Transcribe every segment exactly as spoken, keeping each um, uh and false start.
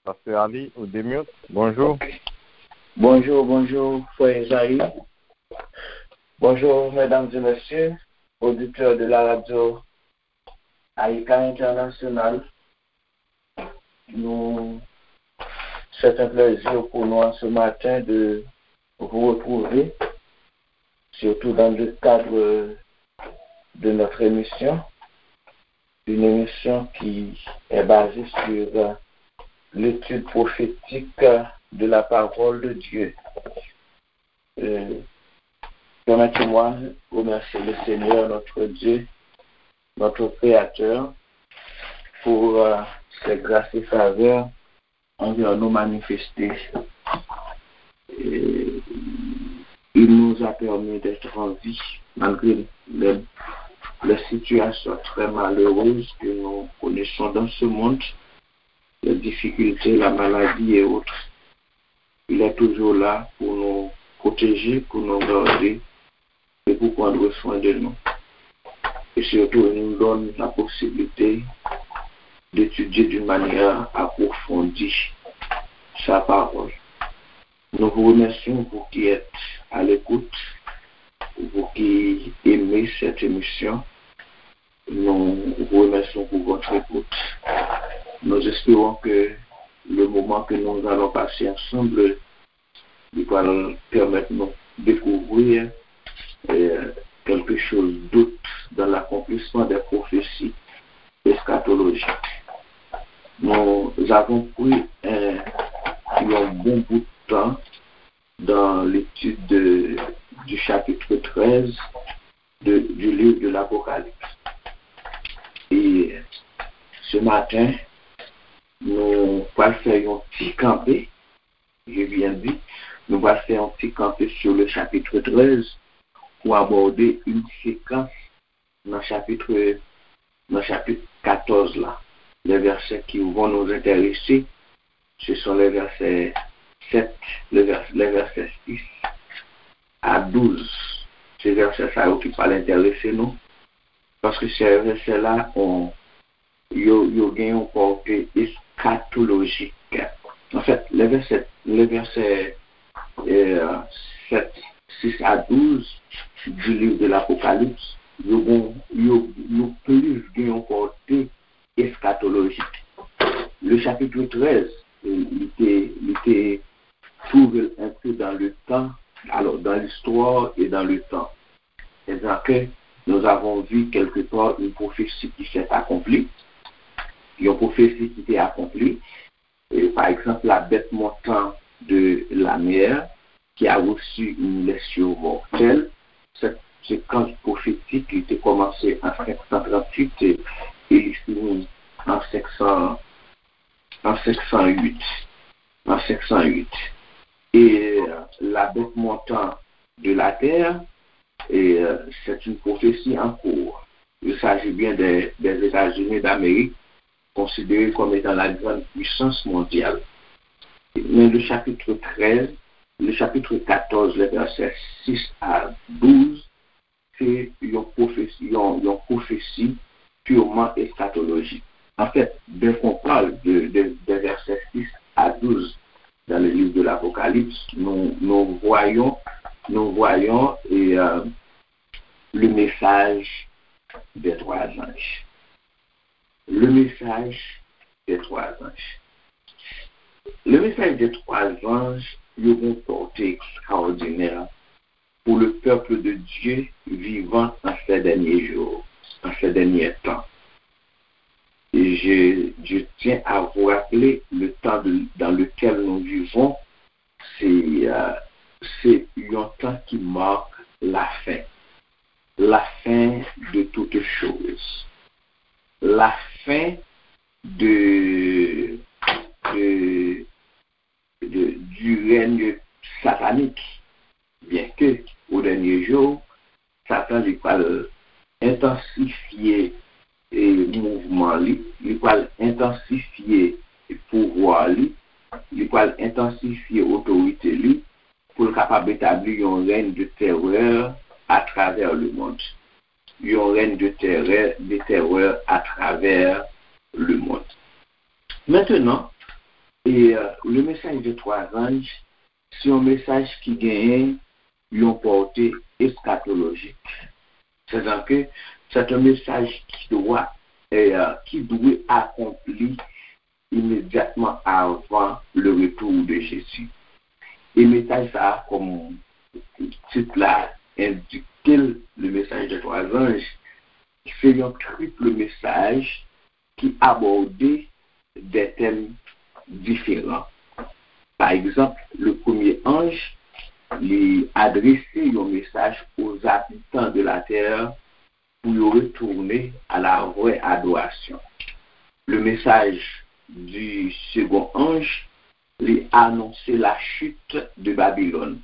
Pastè Ali, ou demute. Bonjou. Ok. Bonjou, bonjou, frè Ezayi. Bonjou, mesdames et messieurs, auditeurs de la radio Aïka International. Nous, c'est un plaisir pour nous en ce matin de vous retrouver, surtout dans le cadre de notre émission, une émission qui est basée sur l'étude prophétique de la parole de Dieu. Euh, permettez-moi de remercier le Seigneur, notre Dieu, notre Créateur, pour euh, ses grâces et faveurs envers nous manifestées. Et il nous a permis d'être en vie, malgré les, les situations très malheureuses que nous connaissons dans ce monde, les difficultés, la maladie et autres. Il est toujours là pour nous protéger, pour nous garder et pour prendre soin de nous. Et surtout, il nous donne la possibilité d'étudier d'une manière approfondie sa parole. Nous vous remercions, vous qui êtes à l'écoute, vous qui aimez cette émission. Nous vous remercions pour votre écoute. Nous espérons que le moment que nous allons passer ensemble, il va permettre nous de découvrir euh, quelque chose d'autre dans l'accomplissement des prophéties eschatologiques. Nous avons pris un, un bon bout de temps dans l'étude de, du chapitre treize de, du livre de l'Apocalypse. Et ce matin, nous allons faire un petit campé, je viens de dire, nous allons faire un petit campé sur le chapitre treize pour aborder une séquence dans le chapitre, dans le chapitre quatorze là. Les versets qui vont nous intéresser, ce sont les versets sept, les vers- les versets six à douze. Se vèsè sa yo ki pral enterese nou. Paske se vèsè la, on, yo, yo gen yon pòte eskatolojik. Anfèt, les versets, les versets euh, sept, six à douze du livre de l'Apocalypse, yo, bon, yo, yo plis gen yon pòte eskatolojik. Le chapitre treize, euh, li te, li te trouve l un peu dans le temps, alors dans l'histoire et dans le temps. C'est-à-dire que nous avons vu quelque part une prophétie qui s'est accomplie, une prophétie qui était accomplie, et par exemple la bête montant de la mer qui a reçu une blessure mortelle, cette séquence prophétique qui était commencée en cinq cent trente-huit et, et il finit en cinq cents, en cinq cent huit, en cinq cent huit. Et euh, la bête montant de la terre, et euh, c'est une prophétie en cours. Il s'agit bien des, des États-Unis d'Amérique, considérés comme étant la grande puissance mondiale. Mais le chapitre treize, le chapitre quatorze, les versets six à douze, se yon pwofesi, yon, yon pwofesi purement eschatologique. En fait, dès qu'on parle de, de, des versets six à douze dans le livre de l'Apocalypse, nous, nous voyons, nous voyons et, euh, le message des trois anges. Le message des trois anges. Le message des trois anges, il y a une portée extraordinaire pour le peuple de Dieu vivant en ces derniers jours, en ces derniers temps. Et je, je tiens à vous rappeler le temps de- dans lequel nous vivons, c'est euh, c'est un temps qui marque la fin. La fin de toutes choses. La fin de, de, de- du règne satanique. Byenke, o dènye jou, Satan li pral entansifye e, mouvman li, li pral entansifye pouvwa li, li pral entansifye otorite li pou l kapab etabli yon rèn de terè atravè lemonn. Yon rèn de terè, de terè atravè lemonn. Mentenan, E euh, le message de trois anges, se yon mesaj ki genyen yon pòte eskatolojik. C'est-à-dire que c'est un message qui doit, euh, qui doit accomplir immédiatement avant le retour de Jésus. E mesaj sa a, kòm tit la endike l, le message de trois anges, se yon triple mesaj ki abòde de tèm diferan. Pa egzanp, le premye anj, li adrese yon mesaj aux habitants de la terre pour y retourner à la vraie adoration. Le message du second ange, li anonse la chute de Babylone.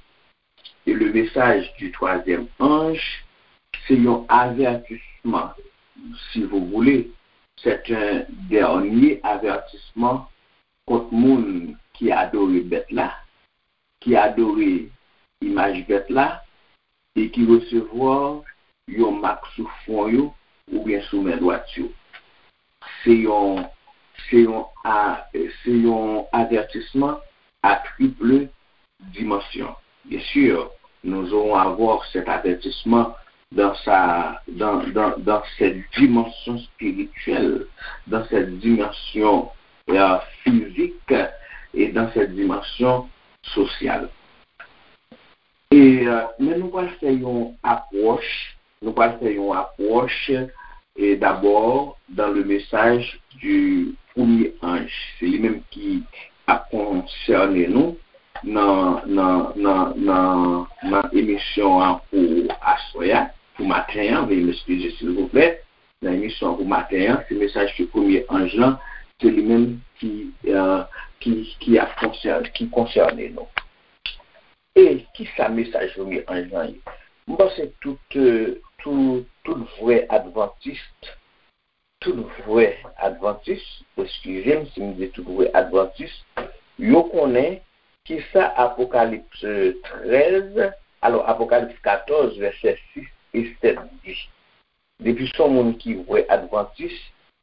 Et le message du troisième ange, c'est un avertissement, si vous voulez, c'est un dernier avertissement kont moun ki adore bèt la, ki adore imaj bèt la, e ki resevwa yon mak sou fwon yo oubyen sou men dwat yo. Se yon, se yon, a, se yon avètisman a triple dimension. Bien sûr, nous aurons à voir cet avertissement dans sa, dans, dans, dans cette dimension spirituelle, dans cette dimension euh, physique et dans cette dimension sociale. E euh, men nou pral fè yon apwòch, nou pral fè yon apwòch e dabò dans le message du premier ange. Se li menm ki ap konsène nou nan nan nan nan nan emisyon an pou aswè a, pou maten an, veuillez m'excuser silvouplè. Nan emisyon an pou maten an, se mesaj ke premye anj lan, se li menm ki, euh, ki, ki ap konsène, ki konsène nou. E ki sa mesaj premye anj lan ye? M panse tout, euh, tout, tout vrè advantis, tout vrè advantis, eskize m si m di tout vrè advantis, yo konnen ki sa Apokalips trèz, alò Apokalips katòz, vèsè sis e sèt di. Depi se yon moun ki vrè advantis,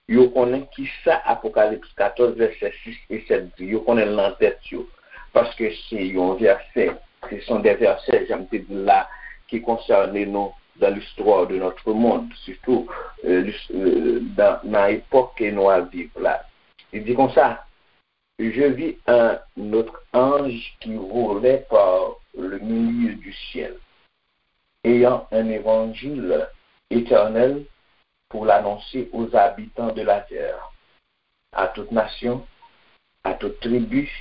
yo konnen ki sa Apokalips katòz, vèsè sis e sèt di. Yo konnen l nan tèt yo. Paske se yon vèsè, se sont des versets, jan m te di l la, ki konsène nou dans l'histoire de notre monde, surtout euh, euh, dans, dans l'époque que nous vivons là. Il dit comme ça, je vis un autre ange qui volait par le milieu du ciel, ayant un évangile éternel pour l'annoncer aux habitants de la terre, à toute nation, à toute tribu,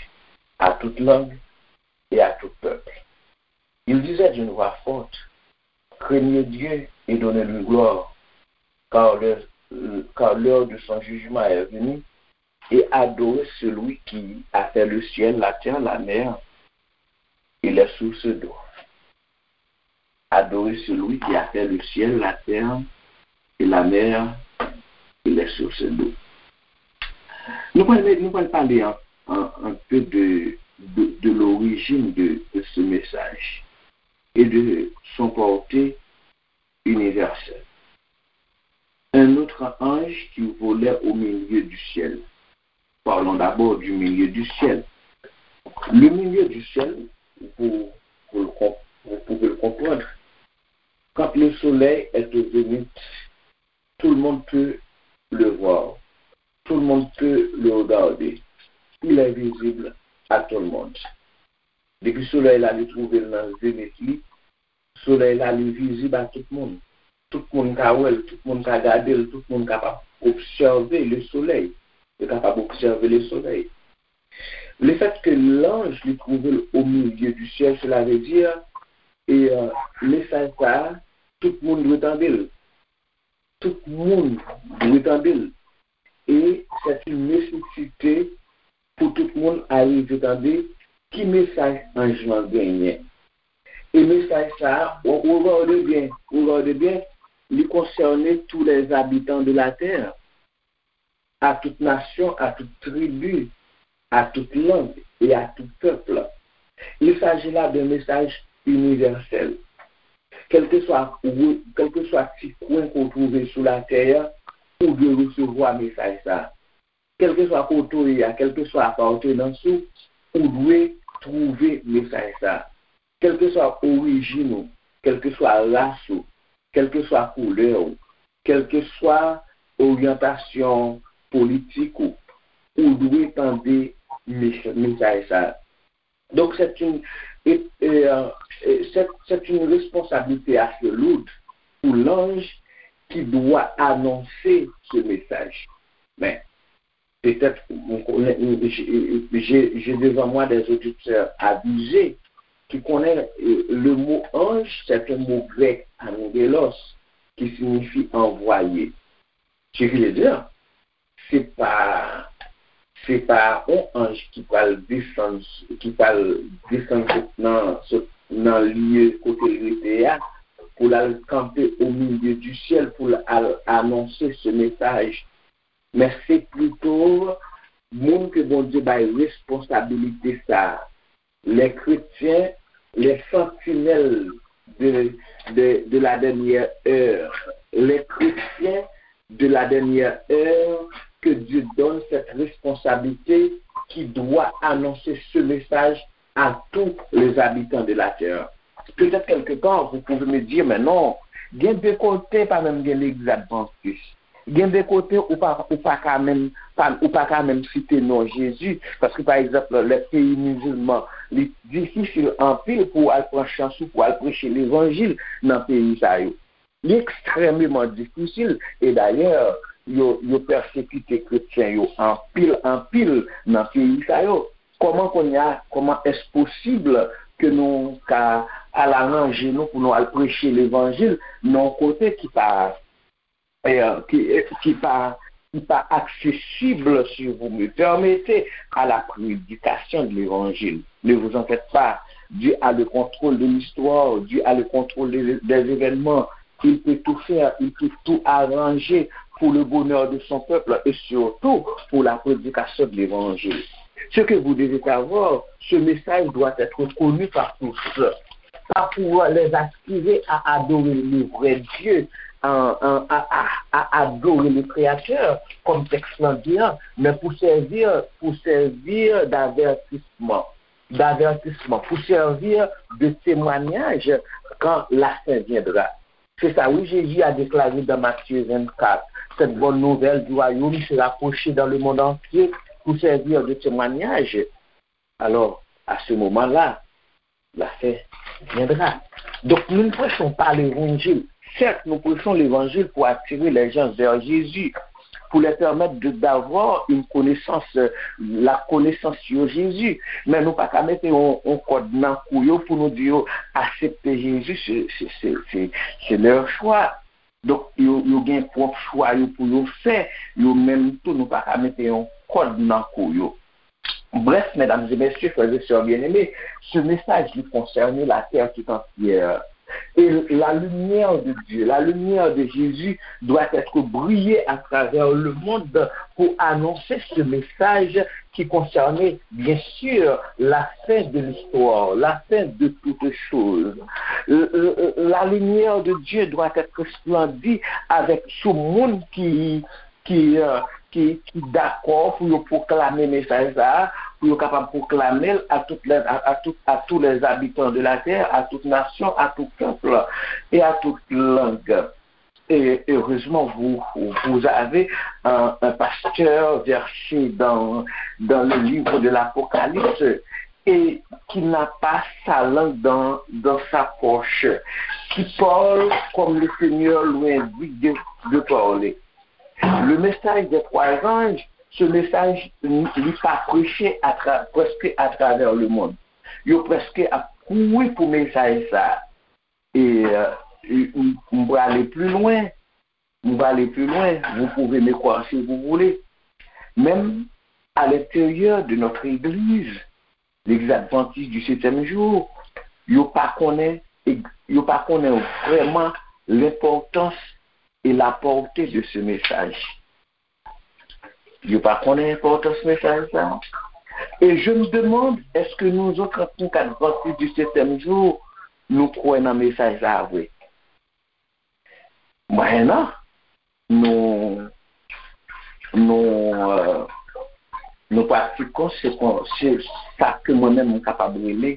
à toute langue et à tout peuple. Il disait d'une voix forte, craignez Dieu et donnez-lui gloire, car l'heure, car l'heure de son jugement est venue, et adorez celui qui a fait le ciel, la terre, la mer et les sources d'eau. Adorez celui qui a fait le ciel, la terre et la mer et les sources d'eau. Nous allons, nous allons parler un, un, un peu de, de, de l'origine de, de ce message et de son portée universelle. Un autre ange qui volait au milieu du ciel. Parlons d'abord du milieu du ciel. Le milieu du ciel, vous, vous, le, vous pouvez le comprendre, quand le soleil est au zénith, tout le monde peut le voir, tout le monde peut le regarder. Il est visible à tout le monde. Depi solèy la li twouve l nan zenit li, solèy la li vizib a tout moun. Tout moun ka wè l, tout moun ka gade l, tout moun kapab obsève le soleil. Yo kapab obsève le soleil. Le fait que l'ange li twouve l au milieu du ciel, cela veut dire, e euh, mesaj sa a, tout moun dwe tande l. Tout moun dwe tande l. E c'est une nécessité pou tout moun arive tande ki mesaj anj lan genyen. E mesaj sa a, regardez bien, regardez bien, li konsène tous les habitants de la terre, à toute nation, à toute tribu, à toute langue et à tout peuple. Il s'agit là d'un message universel. Kèlkeswa, kèlkeswa ti kwen ke w twouve sou latè a, ou dwe resevwa mesaj sa a. kèlkeswa kote w ye a, kèlkeswa apartenans ou, ou dwe twouve mesaj sa a. Kèlkeswa orijin ou, kèlkeswa ras ou, kèlkeswa koulè w, kèlkeswa oryantasyon politik ou, ou dwe tande mes- mesaj sa a. Donc, c'est une, et, et, euh, et c'est, c'est une responsabilité assez lourde pour l'ange qui doit annoncer ce message. Mais peut-être, j'ai, j'ai devant moi des auditeurs avisés qui connaissent euh, le mot ange, c'est un mot grec, angelos, qui signifie envoyé. Ce qui veut dire, se pa se pa yon anj ki pral desann ki pral desann sot nan sot nan lye kote l rete a pou l al kanpe o milye di syèl pou l al anonse se mesaj. Men se plito moun ke Bondye bay responsabilite sa a. Les chrétiens, les sentinelles de, de, de la dernière heure. Les chrétiens de la dernière heure, que Dieu donne cette responsabilité qui doit annoncer ce message à tous les habitants de la terre. Peut-être quelque part, vous pouvez me dire, mais non, gen de kote pa menm gen legliz advantis. Gen de kote ou pa ou pa ka menm pa ou pa ka menm site non Jezi, paske pa egzanp lè peyi mizilman li difisil anpil pou w al pran chans ou pou w al preche levanjil nan peyi sa yo. Li ekstrèmeman difisil e dayè yo yo pèsekite kretyen yo anpil anpil nan peyi sa yo. Kòman kounye a, kòman èske posib ke nou ka al aranje nou pou nou al preche levanjil nan yon kote ki pa ki, ki pa, ki pa accessible, si vous me permettez, à la prédication de l'évangile. Ne vous en faites pas. Dieu a le contrôle de l'histoire, Dieu a le contrôle des, des événements. Il peut tout faire, il peut tout arranger pour le bonheur de son peuple et surtout pour la prédication de l'évangile. Ce que vous devez savoir, ce message doit être connu par tous. Pas pour les aspirer à adorer le vrai Dieu, à, à, à, à adorer le Créateur, comme texte l'Indien, mais pour servir, pour servir d'avertissement, d'avertissement, pour servir de témoignage quand la fin viendra. C'est ça, oui, Jésus a déclaré dans Matthieu vingt-quatre, cette bonne nouvelle du royaume sera prêchée dans le monde entier pour servir de témoignage. Alors, à ce moment-là, la fin viendra. Donc, nous ne prêchons pas l'évangile. Certes, nous prêchons l'évangile pour attirer les gens vers Jésus, pour les permettre de, d'avoir une connaissance, euh, la connaissance sur Jésus. Men nou pa ka mete yon, yon kòd nan kou yo pou nou di yo aksepte Jezi, se, se, se, se, se leur choix. Donk, yo, yo gen pwòp chwa yo pou yo fè, yo menm tou, nou pa ka mete yon kòd nan kou yo. Bref, mesdames et messieurs, frères et sœurs bien-aimés, ce message, il concerne la terre tout entière. Et la lumière de Dieu, la lumière de Jésus doit être brillée à travers le monde pour annoncer ce message qui concernait bien sûr la fin de l'histoire, la fin de toutes choses. Euh, euh, euh, la lumière de Dieu doit être resplendie avec sou moun ki ki, euh, ki, ki dakò pou yo pwoklame mesaj sa a, pou yo kapab pwoklame l à toutes les, à, à, tout, à tous les habitants de la terre, à toute nation, à tout peuple et à toute langue. Et heureusement, vous, vous avez un, un pasteur versé dans, dans le livre de l'Apocalypse et qui n'a pas sa langue dans, dans sa poche, qui parle comme le Seigneur lui indique de, de parler. Le message des trois anges, ce message, li pa preche à tra, preske atravè lemonn. Yo preske ap kouri pou mesaj sa. E, euh, m, m prale pli lwen, m prale pli lwen, vous pouvez me croire si vous voulez. Menm à l'intérieur de notre église, l'église adventiste du septième jour, yo pa konnen, yo pa konnen vrèman l'importance et la portée de ce message. Yo pa konnen enpòtans mesaj sa. Et je me demande, est-ce que nous autres, en tant qu'adventistes du septième jour, nou kwè nan mesaj sa vre? Mwen non. Nou, nou, euh, kon se, kon se sa ke mwen menm m kapab rele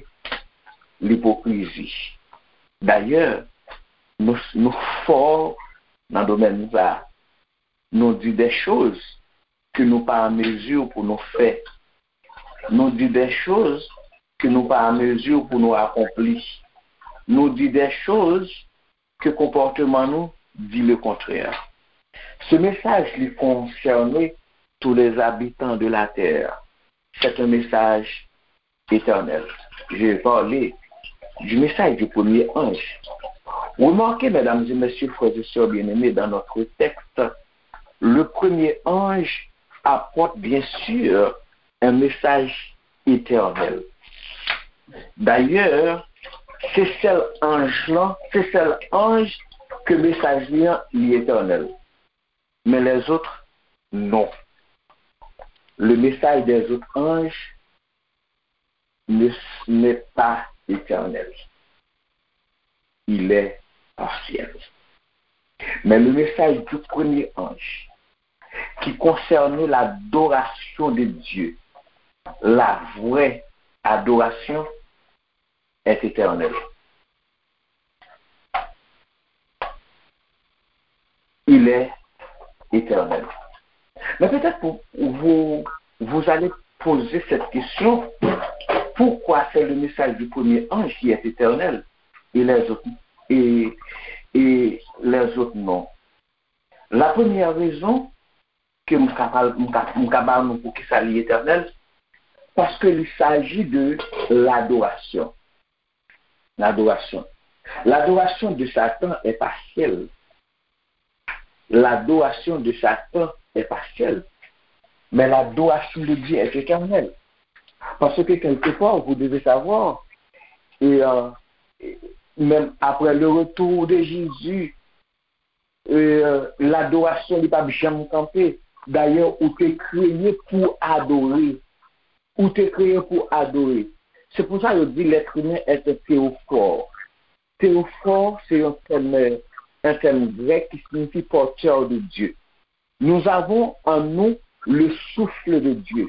lipokrizi. Dayè, nou, nou fò nan domèn sa. Nou di de choz ke nou pa an mezi pou nou fè. Nou di de choz ke nou pa an mezi pou nou akonpli. Nou di de choz ke konpòteman nou di le kontrè. Ce message li concerne tous les habitants de la terre. C'est un message éternel. Je vais parler du message du premier ange. Remarquez, mesdames et messieurs, frères et sœurs bien-aimés, dans notre texte, le premier ange apporte bien sûr un message éternel. D'ailleurs, se sèl anj lan, se sèl anj ke mesaj li an li etènèl. Men lèzòt, non. Le message des autres anges ne, n'est pas éternel. Il est partiel. Mais le message du premier ange, qui concerne l'adoration de Dieu, la vraie adoration, est éternel. Il est éternel. Mais peut-être vous, vous, vous allez poser cette question, pourquoi c'est le message du premier ange qui est éternel et les autres, et, et les autres non? La première raison, ke m ka pale, m ka, m ka ba nou pou ki sa li etènèl, paske li saji de ladorasyon. Ladorasyon. L'adoration de Satan est partielle. L'adoration de Satan est partielle. Mais l'adoration de Dieu est éternelle. Parce que quelque part, vous devez savoir, et, euh, et même après le retour de Jésus, euh, ladorasyon li p ap janm kanpe. Dayè, ou te kreye pou adore. Ou te kreye pou adore. Se pou sa yo di l'être humain est un théophore. Théophore, c'est un terme, un terme grec qui signifie porteur de Dieu. Nous avons en nous le souffle de Dieu.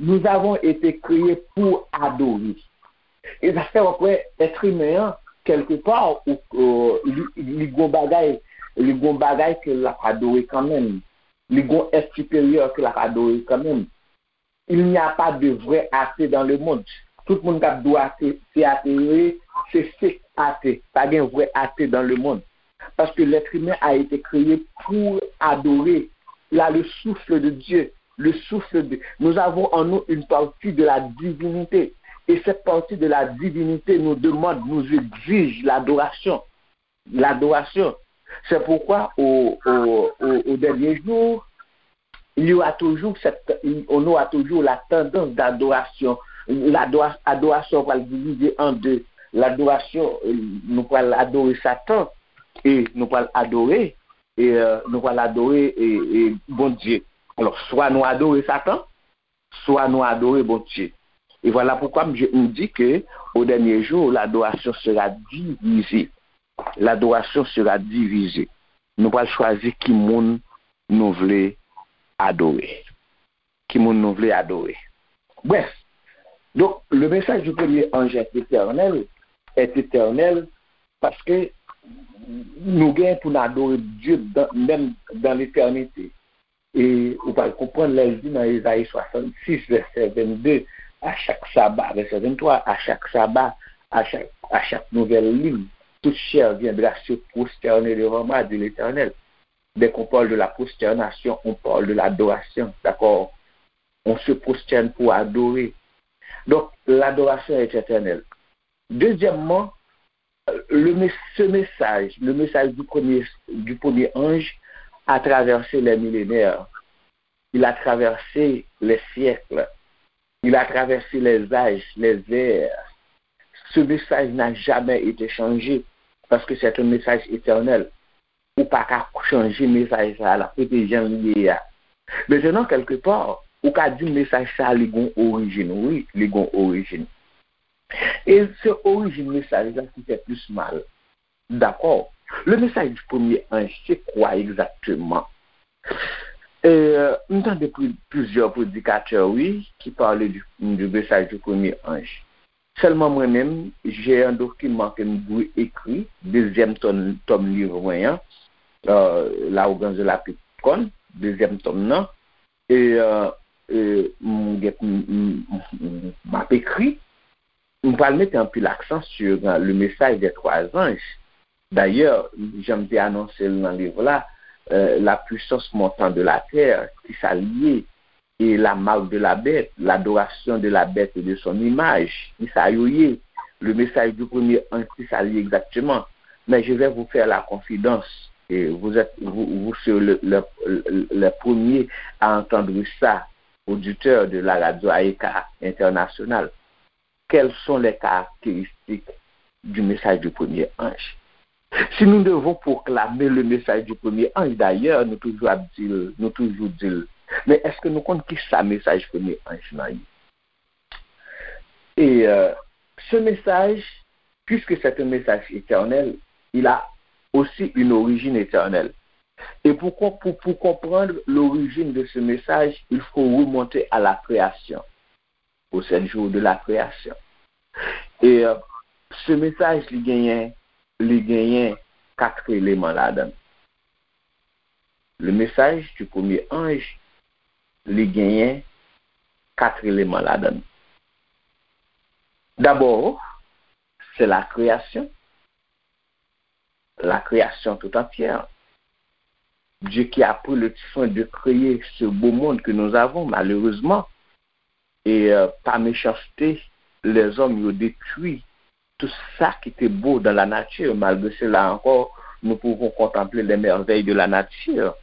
Nous avons été créés pour adorer. E sa fè w ap wè èt imen an, kèlkepa, ou, euh, li, li gon bagay, li gon bagay ke l ap adore kanmenm. Li gon èt siperyè ke l ap adore kanmenm. Il n'y a pas de vrai athée dans le monde. Tout moun k ap di w ate, se ate yo ye, se fake ate. Pa gen vrè ate dans le monde. Parce que l'être humain a été créé pour adorer. Il a le souffle de Dieu. Le souffle de... Nous avons en nous une partie de la divinité. Et cette partie de la divinité nous demande, nous exige l'adoration. L'adoration. C'est pourquoi au, au, au, au dernier jour, il y aura toujours cette, on aura toujours la tendance d'adoration. Ladora-, adorasyon pral divize an de. Ladorasyon, euh, nou pral adore Satan e nou pral adore, e, euh, nou pral adore, e, e Bondye. Alò, swa nou adore Satan, swa nou adore Bondye. Et voilà pourquoi m, je, m di ke au dernier jour, l'adoration sera divisée. L'adoration sera divisée. Nou pral chwazi ki moun nou vle adore. Ki moun nou vle adore. Bref, donc, le message du premier ange est éternel, est éternel, paske nou gen pou n adore Dye dan, menm dan letènite. E ou pral konprann lè l di nan Ezayi swasannsis, vèsè vennde, à chaque sabbat, vèsè venntwa, à chaque sabbat, à chaque, à chaque nouvelle lune, toute chair viendra se prosterner devant moi, dit l'Éternel. Dès qu'on parle de la prosternation, on parle de l'adoration, d'accord? On se prosterne pour adorer. Donc, l'adoration est éternelle. Deuxièmement, le mes-, ce message, le message du premier, du premier ange a traversé les millénaires. Il a traversé les siècles. Il a traversé les âges, les ères. Ce message n'a jamais été changé parce que c'est un message éternel. Ou pa ka chanje mesaj sa a, l ap rete jan l ye a. Mentenan, kèlkepa, ou ka di mesaj sa a, li gon orijin. Wi, li gon orijin. E se orijin mesaj la ki fè plis mal. Dakò. Le message du premier ange, c'est quoi exactement? E, euh, m tande plizyè predikatè, wi, ki pale di, di mesaj di premye anj. Sèlman mwen menm, j'ai un document ke m dwe ekri, dezyèm tòm, tòm liv mwen an, euh, L'arrogance de la petite corne, dezyèm tòm nan, e, euh, e m gen, m, m, m, m ap ekri, m pral mete anpil aksan sur, euh, le message des trois anges. Dayè, jan m te anonse l nan liv la, euh, la puissance montant de la terre, ki sa l ye, e la marque de la bête, l'adoration de la bête et de son image, ki sa yo ye, le message du premier ange, ki sa l ye egzakteman. Mais je vais vous faire la confidence, et vous êtes, vous, vous serez le, le, le, le premier à entendre ça, auditeur de la radio A E K International. Quelles sont les caractéristiques du message du premier ange? Si nous devons proclamer le message du premier ange, d'ailleurs, nou toujou ap di l, nou toujou di l, men èske nou konn ki sa mesaj premye anj lan ye? Et euh, ce message, puisque c'est un message éternel, il a aussi une origine éternelle. Et pour, pour, pour comprendre l'origine de ce message, il faut remonter à la création, aux sept jours de la création. E, euh, ce message, li genyen, li genyen kat eleman ladan l. Le message du premier ange, li genyen kat eleman ladan l. D'abord, c'est la création, la création tout entière. Dieu qui a pris le soin de créer ce beau monde que nous avons, malheureusement, e, euh, pa mechanste, lèzòm yo detwi tout sa ki te bo dans la nature. Malgré cela encore, nous pouvons contempler les merveilles de la nature.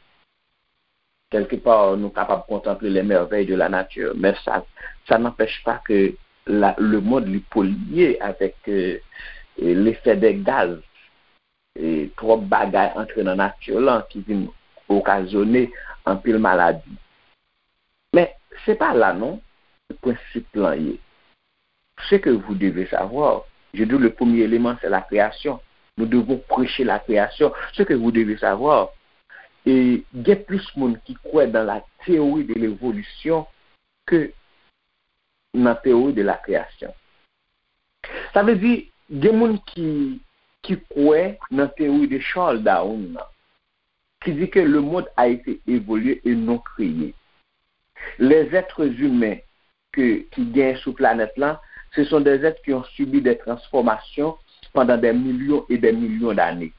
Quelque part, nou kapab kontanple les merveilles de la nature, men sa, sa n'empêche pas que la, le monde li polye avec, euh, l'effet des gaz. E twòp bagay antre nan nati lan ki vin okazyone anpil maladi. Men, se pa la non, prensip lan ye. Ce que vous devez savoir, je dis le premier élément, c'est la création. Nous devons prêcher la création. Ce que vous devez savoir, e gen plis moun ki kwè dans la théorie de l'évolution ke nan théorie de la création. Sa vle di, gen moun ki, ki kwè nan théorie de Charles Darwin nan, ki di ke le monde a été évolué et non créé. Les êtres humains ke, ki gen sou planèt lan, ce sont des êtres qui ont subi des transformations pendant des millions et des millions d'années.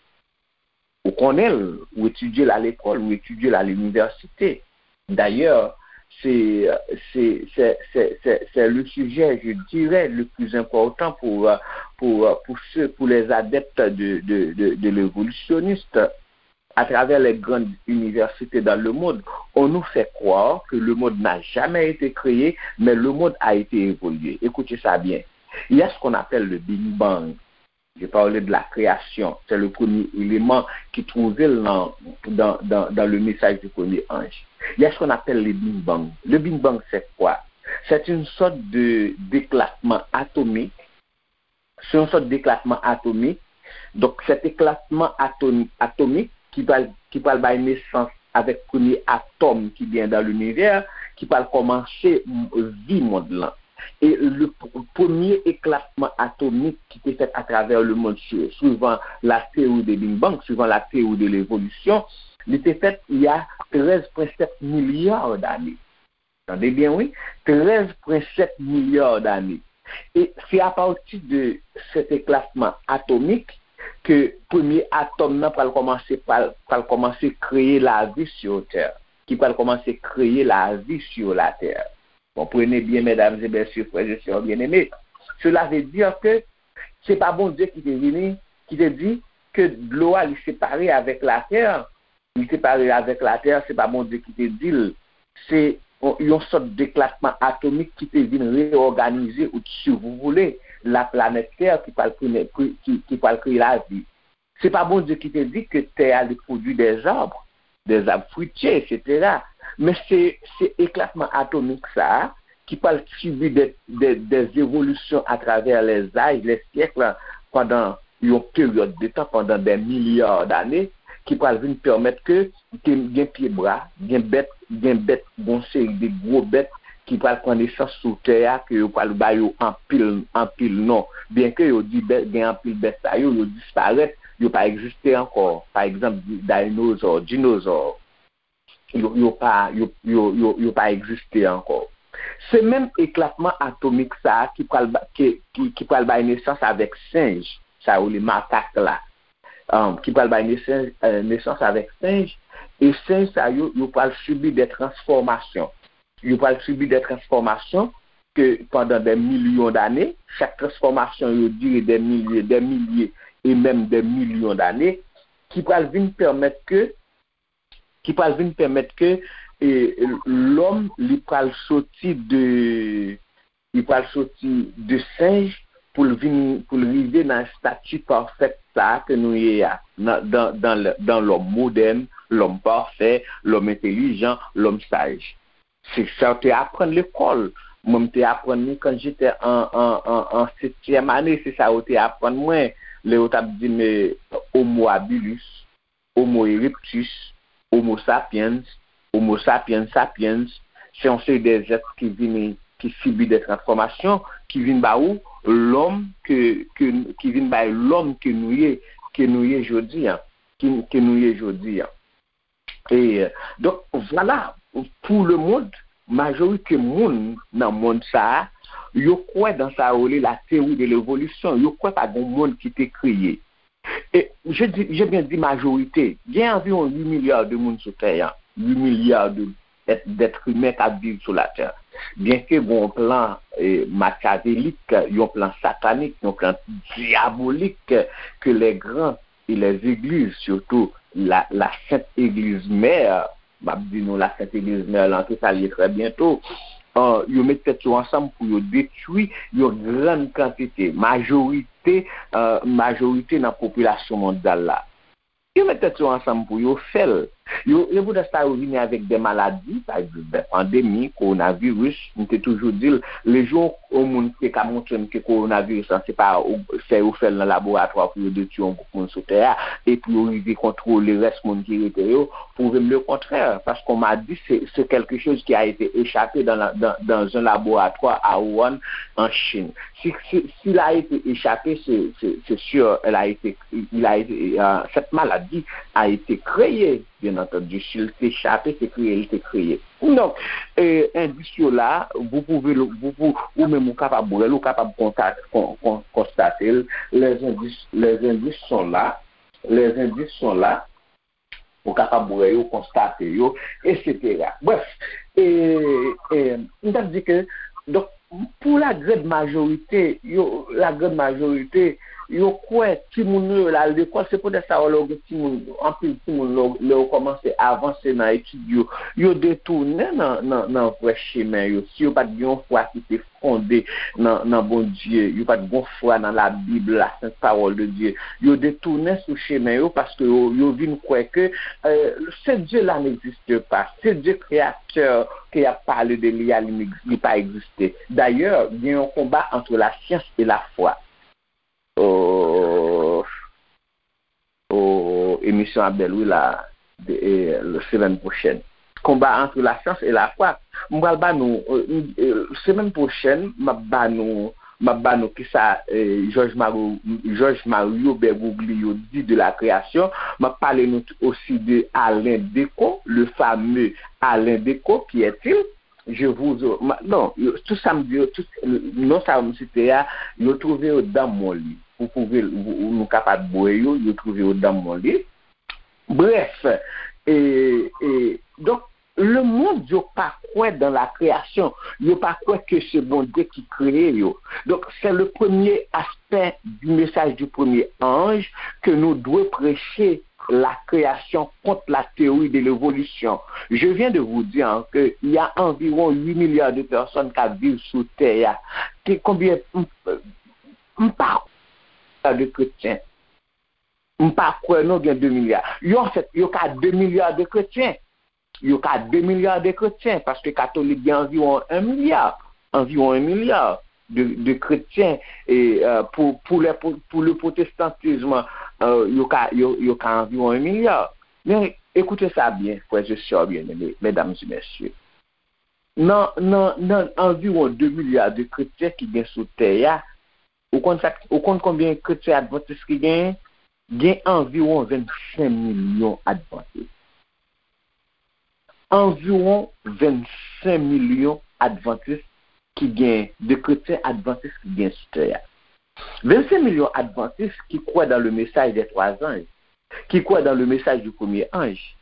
Ou konnen l, ou etidye l a lekòl, ou etidye l a linivèsite. D'ailleurs, c'est, c'est, c'est, c'est, c'est, c'est le sujet, je dirais, le plus important pour, euh, pour, euh, pour ceux, pour les adeptes de, de, de, de l'évolutionniste. À travers les grandes universités dans le monde, on nous fait croire que le monde n'a jamais été créé, mais le monde a été évolué. Écoutez ça bien. Il y a ce qu'on appelle le Big Bang. Je parle de la création. C'est le premier élément qui trouve dans, dans, dans, dans le message du premier ange. Il y a ce qu'on appelle le Big Bang. Le Big Bang, c'est quoi? C'est une sorte de, d'éclatement atomique. Se yon sòt deklatman atomik. Donk, sèt eklatman atom, atomik ki pral, ki pral bay nesans avèk premye atòm ki gen dan linivè, ki pral kòmanse vi mond lan. E le premye eklatman atomik ki te fèt atravè le mond, suivan la théorie de Big Bang, suivan la théorie de l'évolution, li te fèt il y a treize point sept milliards d'années. Tande byen, wi, treize point sept milliards d'années. E se apati de sèt eklatman atomik ke premye atòm nan pral kòmanse, pral, pral kòmanse kreye lavi sur terre, ki pral kòmanse kreye lavi sur la terre. Konprann byen, mesdames et messieurs, frères et sœurs bien-aimés, cela veut dire que se pa Bondye ki te vini, ki te di ke dlo a li separe avèk latè, li separe avèk latè, se pa Bondye ki te di l. Se yon, yon sòt deklatman atomik ki te vin reyòganize, ou si vous voulez, la planète Terre ki pral kreye, ki, ki pral kreye lavi. Se pa Bondye ki te di ke tè a li pwodui des arbres, des arbres fruitiers, et cetera. Men se, se eklatman atomik sa a ki pral sibi de, de, des évolutions à travers les âges, les siècles, pandan yon peryòd de tan, pandan des milliards d'années, ki pral vin pèmèt ke gen, gen pye bwa, gen bèt, gen bèt, gen yon seri de gwo bèt ki pral pran nesans sou tè a, ke yo pral ba yo anpil, anpil non. Byenke yo di bèt, gen anpil bèt sa yo, yo disparèt, yo pa egziste ankò. Pa egzanp, di- dayinozò, dinozò, yo, yo pa, yo, yo, yo, yo pa egziste ankò. Se menm eklatman atomik sa a ki pral, ba- ki, ki, ki pral bay nesans avèk senj, sa yo rele makak la, um, ki pral bay nesans, eh, nesans avèk senj, e senj sa yo, yo pral sibi de transfòmasyon. Yo pral sibi de transfòmasyon ke pandan de milyon dane, chak transfòmasyon yo dire de milye, de milye e menm de milyon dane, ki pral vin pèmèt ke, ki pral vin pèmèt ke, e, lòm li pral soti de, li pral soti de senj pou l vin, pou l rive nan estati pafèt sa a ke nou ye a, nan, dan, dan, dan lòm modèn, lòm pafè, lòm entelijan, lòm saj. Se sa yo te aprann lekòl. Mwen, m te aprann li quand j'étais en, en, en, en septième année. Se sa yo te aprann mwen. Lè yo t ap di m, eh, Homo habilis, Homo erectus, Homo sapiens, Homo sapiens sapiens. Se yon seri de zèt ki vini, ki sibi de transfòmasyon, ki vin ba ou lòm ke, ke, ki vin bay lòm ke nou ye, ke nou ye jodi a, ki, ke nou ye jodi a. E, donk, vwala, pou le mond, majorite moun nan mond sa a, yo kwè dan sa yo rele la théorie de l'évolution. Yo kwè pa gen yon mond ki te kreye. E, je di, je bien di majorite. Gen anviwon uit milya de moun sou tè a. Uit milya de èt, d'êtres humains k ap viv sou latè. Byenke gen yon plan, eh, makyavelik, yon plan satanik, yon plan dyabolik ke les grands e les églises, surtout la, la Sainte Église Mère, m ap di nou la Sainte Église Mère lan, ke sa l ye trè byento, eh, yo met tèt yo ansanm pou yo detwi yon grann kantite, majorite, eh, majorite nan popilasyon mondyal la. Yo met tèt yo ansanm pou yo fè l. Yo, se poutèt sa yo vini avèk de maladi, pa egzanp, de pandemi, kowonaviris. M te toujou di l, lejou yon moun te ka montre m ke kowonaviris lan, se pa ou- fè yo fè l nan laboratwa pou yo detwi yon gwoup moun sou tè a, epi yo rive kontwole rès moun ki rete yo, pwouve m le kontrè. Paske on m'a dit, c'est, c'est quelque chose qui a été échappé dans la, dans, dans un laboratoire à Wuhan, en Chine. Si, si, s'il a été échappé, c'est, c'est, c'est sûr, elle a été, il a été, euh, cette maladie a été créée, bien entendu. Si l te chape, se kreye l te kreye. Donk, eh, endis yo la, vous pouvez le, vous, vous, ou menm ou kapab wè l, ou kapab konta- kon- kon- konstate l. Les indices, les indices sont là, les indices sont là. Ou kapab wè yo, konstate yo, etsetera. Bref, e, e, m t ap di ke, donk, pou la grande majorité, yo, la grande majorité, yo kwè timoun yo, yo al lekòl, se poutèt sa, lè w gen timoun, anpil timoun, lè w, lè w kòmanse avanse nan etid yo, yo detounen nan, nan, nan vrè chemen yo. Si yo pa t gen yon fwa ki te fonde nan, nan Bondye, yo pa t gen fwa nan Labib, la Sainte Parole de Dieu. Yo detounen sou chemen yo paske yo, yo vin kwè ke, euh, ce Dieu-là n'existe pas. Ce Dieu créateur ke y ap pale de li a, li, li pa egziste. D'ailleurs, gen yon konba entre la science et la foi. Oh, oh, emisyon ap bèl, wi, la, de, e, le semèn pwochèn. Combat entre la science et la foi. M pral ba nou, e, e, semèn pwochèn, m ap ba nou, m ap ba nou kisa, e, George Mario, George Mario Bergoglio di de la création. M ap pale nou t- aussi de Alain Decaux, le fameux Alain Decaux, qui est-il? Je vous, ma- non, yo- tout sa m di yo, tout non sa yo m site a, yo twouve yo dan mon li. Ou twouve, ou- ou- nou kapab bwè yo, yo twouve yo dan mon li. Bref, e, e, donk, le monde yo pa kwè dans la création, yo pa kwè ke se Bondye ki kreye yo. Donc, c'est le premier aspect du message du premier ange que nous devons prêcher, la création contre la théorie de l'évolution. Je viens de vous dire, hein, que il y a environ huit milliards de personnes qui vivent sous terre. Ki konbyen, m, m pa kwè de kretyen. M pa kwè non gen de milya. Yo, anfèt, yo ka de milya de kretyen. Yo ka de milya de kretyen, paske katolik gen anviwon un milliard, anviwon un milliard de, de kretyen, e, euh, pou, pou le, pou, pou le protestantisme, euh, yo ka, yo, yo ka anviwon yon milya. Men, ekoute sa byen, frè e sè byeneme, medam e mesye. Nan, nan, nan anviwon de milya de kretyen ki gen sou tè a, ou konn sa, ou konn konbyen kretyen advantis ki genyen? Gen anviwon vennsenk milyon advantis. Anviwon vennsenk milyon advantis ki gen, de kretyen advantis ki gen sou tè a. Vennsenk milyon advantis ki kwè dans le message des trois anges, ki kwè dans le message du premier ange.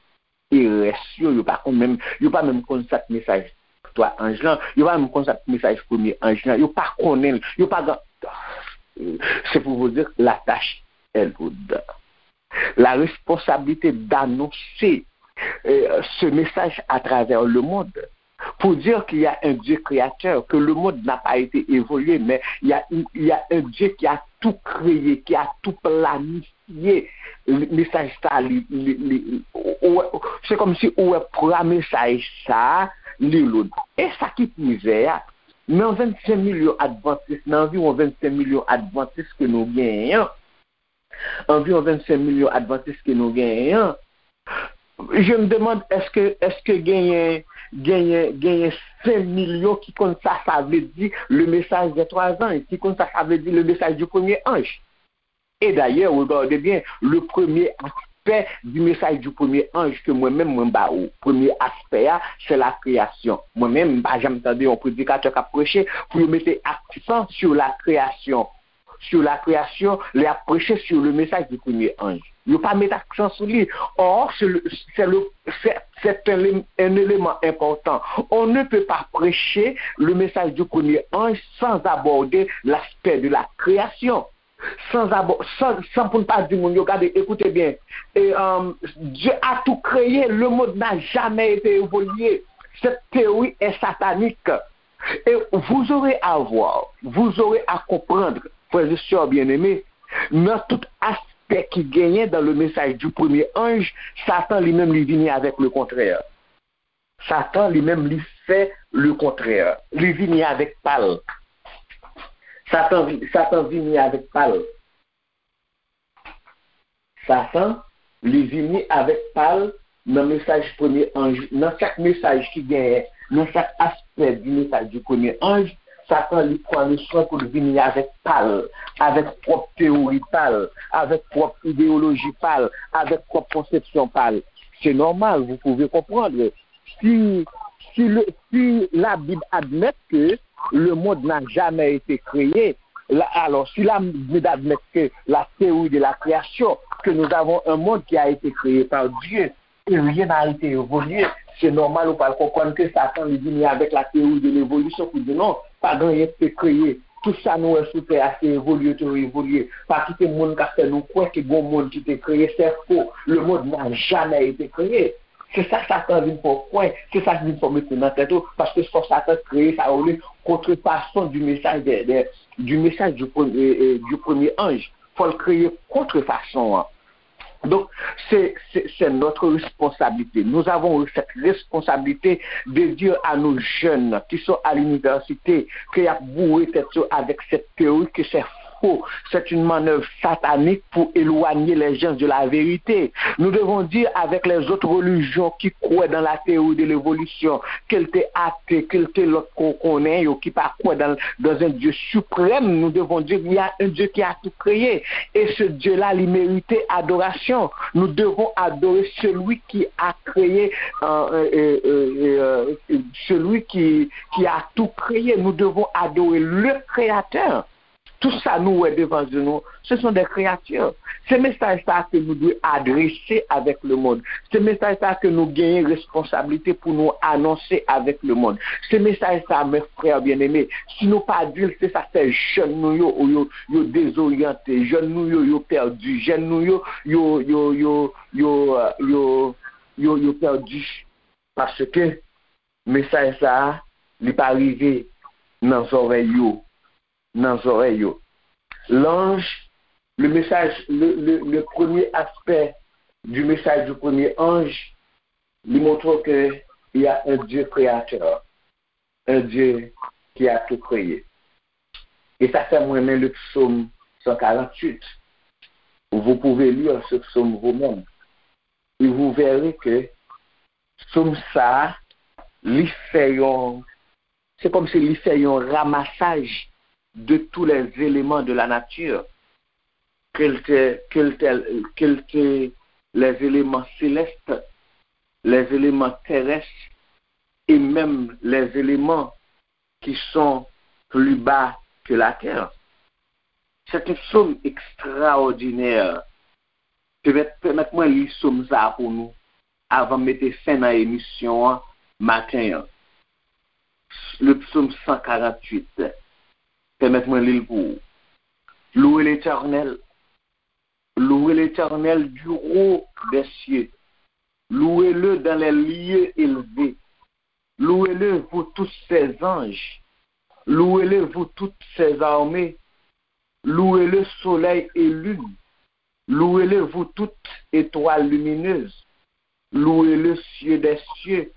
E rès yo, yo pa konn menm, yo pa menm konn sa k mesaj twa anj lan, yo pa menm konn sa k mesaj premye anj lan, yo pa konnen l, yo pa gen. C'est pour vous dire que la tâche est lourde. La responsabilité d'annoncer euh, ce message à travers le monde pour dire qu'il y a un Dieu créateur, que le monde n'a pas été évolué, mais il y a, il y a un Dieu qui a tout créé, qui a tout planifié. Mesaj sa, li, li, li, se kòmsi ou wè pwa mesaj sa, li loud. E sa ki pi zè a, nan vennsenk milyon advantis, nan anviwon vennsenk milyon advantis ke nou genyen an, anviwon vennsenk milyon advantis ke nou genyen an, je me demande, èske, èske genyen, genyen, genyen senk milyon ki konn sa sa vle di le message des trois anges, ki konn sa sa vle di le message du premier ange? Et d'ailleurs, regardez bien, le premier aspect du message du premier ange ke mwen menm mwen ba ou, premye aspè a, c'est la création. Mwen menm, m pa janm tande yon predikatè k ap preche pou yo mete aksan sur la création. Sur la création, lè y ap preche sur le message du premier ange. Yo pa met aksan sou li. Or, c'est le, c'est le, c'est, c'est un, un élément important. On ne peut pas prêcher le message du premier ange sans aborder l'aspect de la création. Sans abor-, sans, sans pou n pa di moun yo, gade, écoutez bien. Et, euh, Dieu a tout créé, le monde n'a jamais été évolué. Cette théorie est satanique. Et vous aurez à voir, vous aurez à comprendre, frères et sœurs bien-aimés, nan tout aspè ki genyen dans le message du premier ange, Satan li menm li vini avèk le kontrè. Satan li menm li fè le kontrè. Li vini avèk pa l. Satan, vi- Satan vini avèk pa l. Satan, li vini avèk pa l nan mesaj premye anj, nan chak mesaj ki genyen, nan chak aspè di mesaj di premye anj, Satan, li pran le swen pou l vini avèk pa l, avèk pwòp teyori pa l, avèk pwòp ideyoloji pa l, avèk pwòp konsepsyon pa l. C'est normal, vous pouvez comprendre. Si, si, le, si la Bible admet que le monde n'a jamais été créé, la, alors, si la Bible admet que la théorie de la création, que nous avons un monde qui a été créé par Dieu, et rien n'a été évolué, c'est normal ou pral konprann ke Satan li vini avèk la théorie de l'évolution pou di non, pa gen anyen ki te kreye. Tout sa nou wè sou tè a, se evolye, te evolye. Pa kite moun k ap fè nou kwè ke gen yon mond ki te kreye, c'est faux. Le monde n'a jamais été créé. Se sa Satan vin fè w kwè, se sa vin fè w mete nan tèt ou, paske fò Satan kreye sa yo rele contrefaçon du message de, de, du message du premier, euh, du premier ange. Fò l kreye kontrefason an. Donc, c'est, c'est, c'est notre responsabilité. Nous avons cette responsabilité de dire à nos jeunes qui sont à l'université, ke y ap boure tèt yo avèk cette théorie que c'est faux. C'est une manœuvre satanique pour éloigner les gens de la vérité. Nous devons dire avec les autres religions qui croient dans la théorie de l'évolution, ke l te ate, ke l te lòt ke w konnen yo, ki pa kwè dans, dans un Dieu suprême, nous devons dire il y a un Dieu qui a tout créé. Et ce Dieu-là, il mérite adoration. Nous devons adorer celui qui a créé, euh, euh, euh, euh, euh, celui qui, qui a tout créé. Nous devons adorer le Créateur. Tout sa nou wè devan je nou, ce sont des créatures. Se mesaj sa ke nou dwe adrese avèk le monde. Se mesaj sa ke nou genyen responsablite pou nou anonse avèk le monde. Se mesaj sa, mes frères bien-aimés, si nou pa di l, se sa k fè jèn nou yo, yo, yo dezoryante, jèn nou yo, yo pèdi, jèn nou yo, yo, yo, yo, yo, euh, yo, yo, yo pèdi. Paske mesaj sa a, li pa rive nan zòrèy yo, nan zòrèy yo. L'ange, le message, le, le, le premier aspect du message du premier ange, li montre que il y a un Dieu créateur, un Dieu qui a tout créé. E sa fè m renmen le psaume cent quarante-huit. Vous pouvez lire ce psaume vous-même. Et vous verrez que psaume ça, li fè yon, c'est comme si li fè yon ramassage de tous les éléments de la nature, que l te, que l te, que l te, les éléments célestes, les éléments terrestres et même les éléments qui sont plus bas que la terre. C'est un psaume extraordinaire. Pèmèt, pèmèt mwen li psaume sa pou nou avan m mete fen nan emisyon an maten an. Le psaume cent quarante-huit. Pèmèt mwen li l pou ou. Louez l'Éternel. Louez l'Éternel du haut des cieux. Louez-le dans les lieux élevés. Louez-le, vous tous ses anges. Louez-le, vous toutes ses armées. Louez-le, soleil et lune. Louez-le, vous toutes étoiles lumineuses. Louez le cieux des cieux,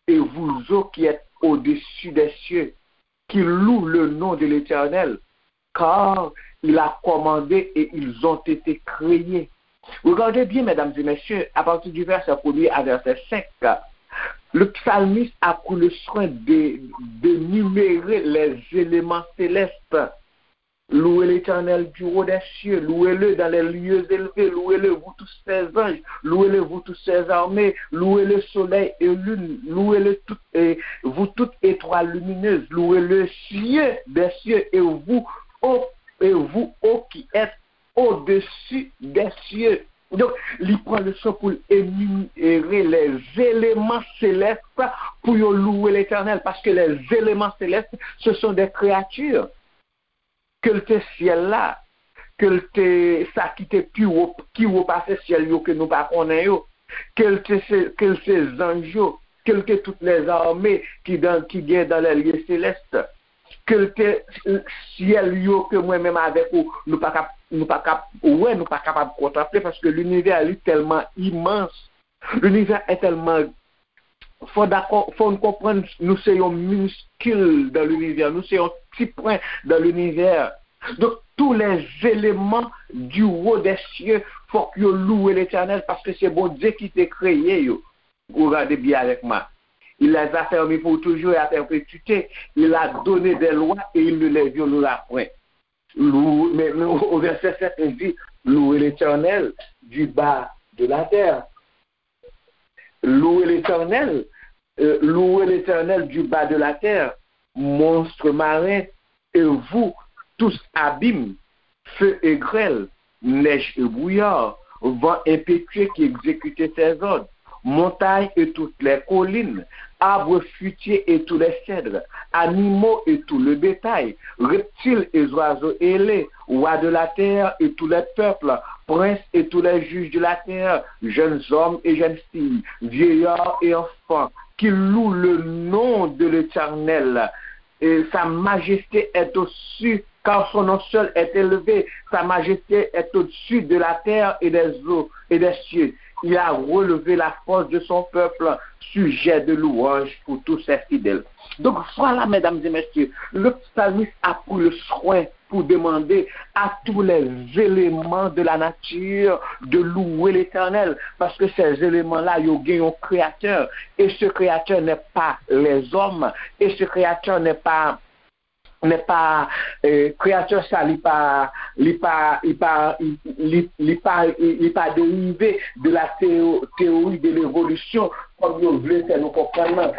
et vous eaux qui êtes au-dessus des cieux, qui louent le nom de l'Éternel, car il a commandé et ils ont été créés. Regardez bien, mesdames et messieurs, à partir du verset premier à verset cinq, le psalmiste a pris le soin de, d'énumérer les éléments célestes. Louez l'Éternel du haut des cieux, louez-le dans les lieux élevés, louez-le, vous tous ses anges, louez-le, vous tous ses armées, louez le soleil et lune, louez-le tout, et vous toutes étoiles lumineuses, louez le cieux des cieux et vous, ô, et vous, ô qui êtes au-dessus des cieux. Donk, li pran le soin pou l énumérer les éléments célestes pou yo louer l'Éternel, paske les éléments célestes, ce sont des créatures. Ke l te syèl la, ke l te sa ki te pi wo, ki wo pase syèl yo ke nou pa konnen yo, ke l te se, ke l se zanj yo, ke l te tout lèzame ki dan, ki gen dan lèlye selès, ke l te syèl yo ke mwen menm avèk ou, nou pa kap, nou pa kap wè, nou pa kapab kontanple, paske linivè li tèlman imans, linivè è tèlman fò dakò, fò n konprann nou se yon miniskil dan linivè, nou se yon ti pwen dan linivè. Donk, tous les éléments du haut des cieux, fòk yo louwe Letènèl, paske se Bondye ki te kreye yo. Ou gade byen avèk mwen. Il les a fermés pour toujours et à perpétuité. Il a donné des lois et il ne les violera point. Louez, mais, mais au verset sept, il dit, louez l'Éternel du bas de la terre. Louez l'Éternel, euh, louez l'Éternel du bas de la terre, monstres marins, et vous, tous abîmes, feu et grêle, neige et brouillard, vent impétueux qui exécute ses ordres, montagnes et toutes les collines, arbres fruitiers et tous les cèdres, animaux et tout le bétail, reptiles et oiseaux ailés, rois de la terre et tous les peuples, princes et tous les juges de la terre, jeunes hommes et jeunes filles, vieillards et enfants, qui louent le nom de l'Éternel. Et sa majesté est au-dessus, car son nom seul est élevé. Sa majesté est au-dessus de la terre et des eaux et des cieux. Il a relevé la force de son peuple, sujet de louange pour tous ses fidèles. Donc voilà, mesdames et messieurs, le psalmiste a pris le soin pour demander à tous les éléments de la nature de louer l'Éternel, parce que ces éléments-là, ils ont un créateur, et ce créateur n'est pas les hommes, et ce créateur n'est pas, n'est pas, euh, créateur ça, li pa, li pa, li pa, li, li, li pa, li, li pa dérivé de la théo-, théorie de l'évolution, comme ils veulent faire nous comprendre.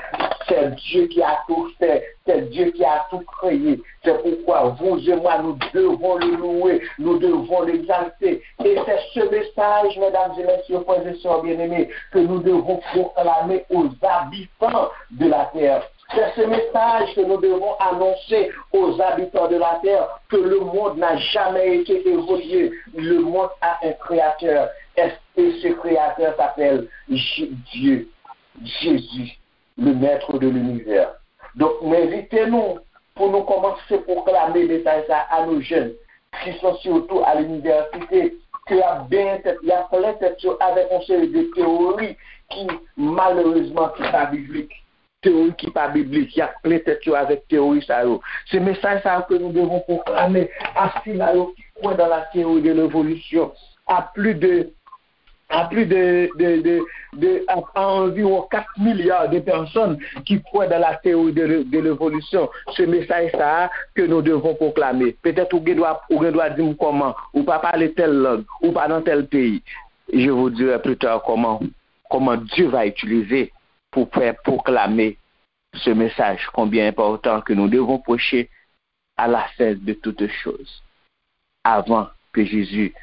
C'est Dieu qui a tout fait, c'est Dieu qui a tout créé. C'est pourquoi vous et moi, nous devons le louer, nous devons l'exalter. Et c'est ce message, mesdames et messieurs, frères et sœurs bien-aimés, que nous devons proclamer aux habitants de la terre. C'est ce message que nous devons annoncer aux habitants de la terre, que le monde n'a jamais été évolué. Le monde a un créateur. Et ce créateur s'appelle J-, Dieu, Jésus, le maître de l'univers. Donk, m envite nou pou nou kòmanse pwoklame mesaj sa a nou jèn, ki se sitou a linivèsite, ke y ap benyen tèt, y ap plen tèt yo avèk yon seri de teyori ki, malerezman, ki pa biblik. Teyori ki pa biblik, y ap plen tèt yo avèk teyori sa yo. Se mesaj sa yo que nous devons proclamer à sila yo ki kwè dans la théorie de l'évolution. à plus de à plus de, de, de, de à, à environ quatre milliards de personnes qui croient dans la théorie de, de l'évolution. Ce message-là que nous devons proclamer. Peut-être ou gen dwa, ou gen dwa di m kòman, ou pa pale tèl lang, ou pa nan tèl peyi. Je vous dirai plus tard comment, comment Dieu va utiliser pour faire proclamer ce message combien important que nous devons prêcher à la fin de toutes choses, avant que Jésus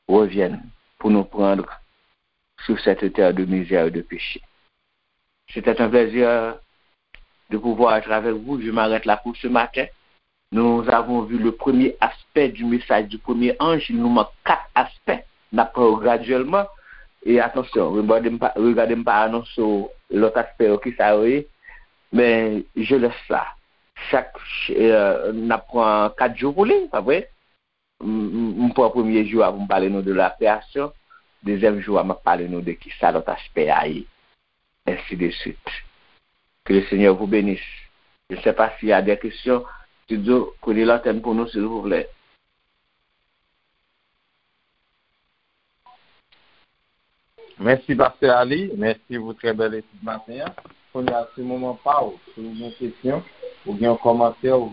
revienne pour nous prendre sur cette terre de misère et de péché. C'était un plaisir de pouvoir être avec vous. Je m'arrête là pour ce matin. Nous avons vu le premier aspect du message du premier ange. Il nous manque quatre aspects. N ap pran yo gradyèlman. E atansyon, regade m pa, regade m pa anonse w lòt aspè yo, ki sa yo ye. Men je laisse ça. Chak, euh, n ap pran kat jou pou li, pa vre? M, m, m pran premye jou a pou m pale nou de la création. Dezyèm jou a, m ap pale nou de ki sa lòt aspè a ye. Ainsi de suite. Que le Seigneur vous bénisse. Je ne sais pas s'il y a des questions. Studio, prenez l'antenne pour nous, s'il vous plaît. Mèsi, Pastè Ali. Mèsi pou trè bèl etid maten an. Kounye a, se moman pa w. Si w gen kesyon, ou gen yon kòmantè, ou